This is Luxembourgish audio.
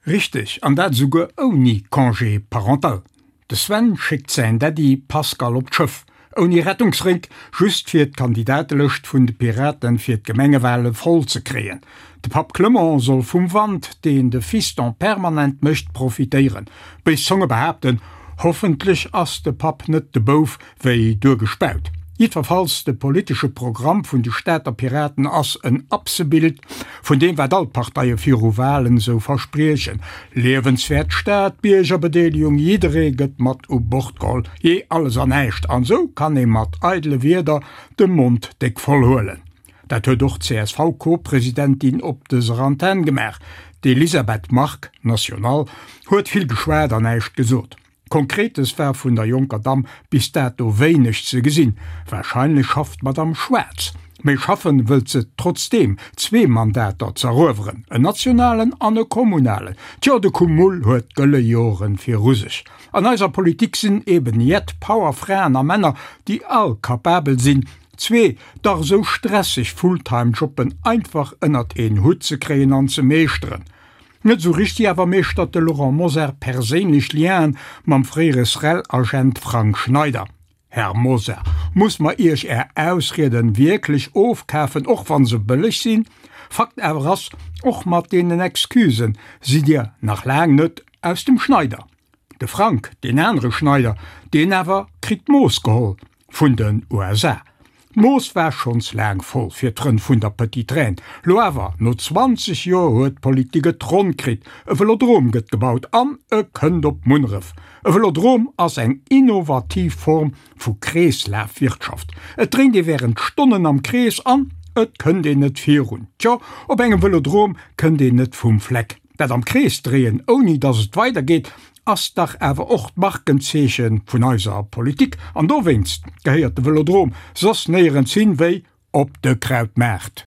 Richteg, an dat esouguer ouni Congé parental. De Sven schéckt säin Daddy Pascal op d'Schëff, ouni Rettungsrénk, just fir d'Kandidatelëscht vun de Piraten fir d'Gemengewale voll ze kréien. De Papp Clement soll vum Wand, deen de Fiston permanent mécht, profitéieren. Béis Zonge behaapten, hoffentlech ass de Papp net de Bouf wéi duergespaut. Jiddwerfalls, de politesche Programm vun de Stater Piraten ass en Absebild vun deem wat all d'Parteie viru Walen esou verspriechen, liewenswäert Stad, Biergerbedeelegung, jidderee gëtt mat u Bord geholl, jee alles an näischt. An esou kann ee mat eidele Wierder de Mond déck voll huelen. Dat huet och d'CSV-Co-Presidentin op dëser Antenn gemaach. D'Elisabeth Margue, National, huet vill geschwat an näischt gesot. Konkretes war vun der jonker Damm bis dato wéineg ze gesinn. Warscheinlech schafft d'Madamm schwaarz. Mee schaffen wëllt se trotzdeem, zwee Mandater z'erueweren, en nationalen an e kommunalen. Tjo, de Cumul huet gëlle Joren viru sech. An eiser Politik sinn eben jett Powerfraen a Männer, déi all kapabel sinn, zwee dach esou stresseg Fulltime-Jobben einfach ënnert een Hutt ze kréien an ze meeschteren. Net esou richteg awer meeschtert de Laurent Mosar perséinlech Lienen mam fréiere SREL-Agent Frank Schneider. Här Mosar, muss mer Iech Är Ausrieden wierklech ofkafen, och wann se bëlleg sinn? Fakt awer ass, och mat deenen Excusen sidd Dir nach laang net aus dem Schneider. De Frank, deen anere Schneider, deen awer kritt d'Mooss geholl vun den USA. D'Mooss war schonns laang voll fir d'Frënn vun der Petite Reine. Lo awer, no 20 Joer huet d'Politik et ronn kritt, e Velodrom gëtt gebaut an e kënnt op Munneref. E Velodrom ass eng innovativ Form vu Kreeslafwirtschaft. Et dréint ee wärend Stonnen am Krees an et kënnt een net virun. Tjo, op engem Velodrom kënnt een net vum Fleck. Dat am Krees dréien, ouni datt et weider geet, ass dach awer och d'Markenzeeche vun eiser Politik. An dowéinst gehéiert de Velodrom soss néierens hin, wéi op de Krautmaart.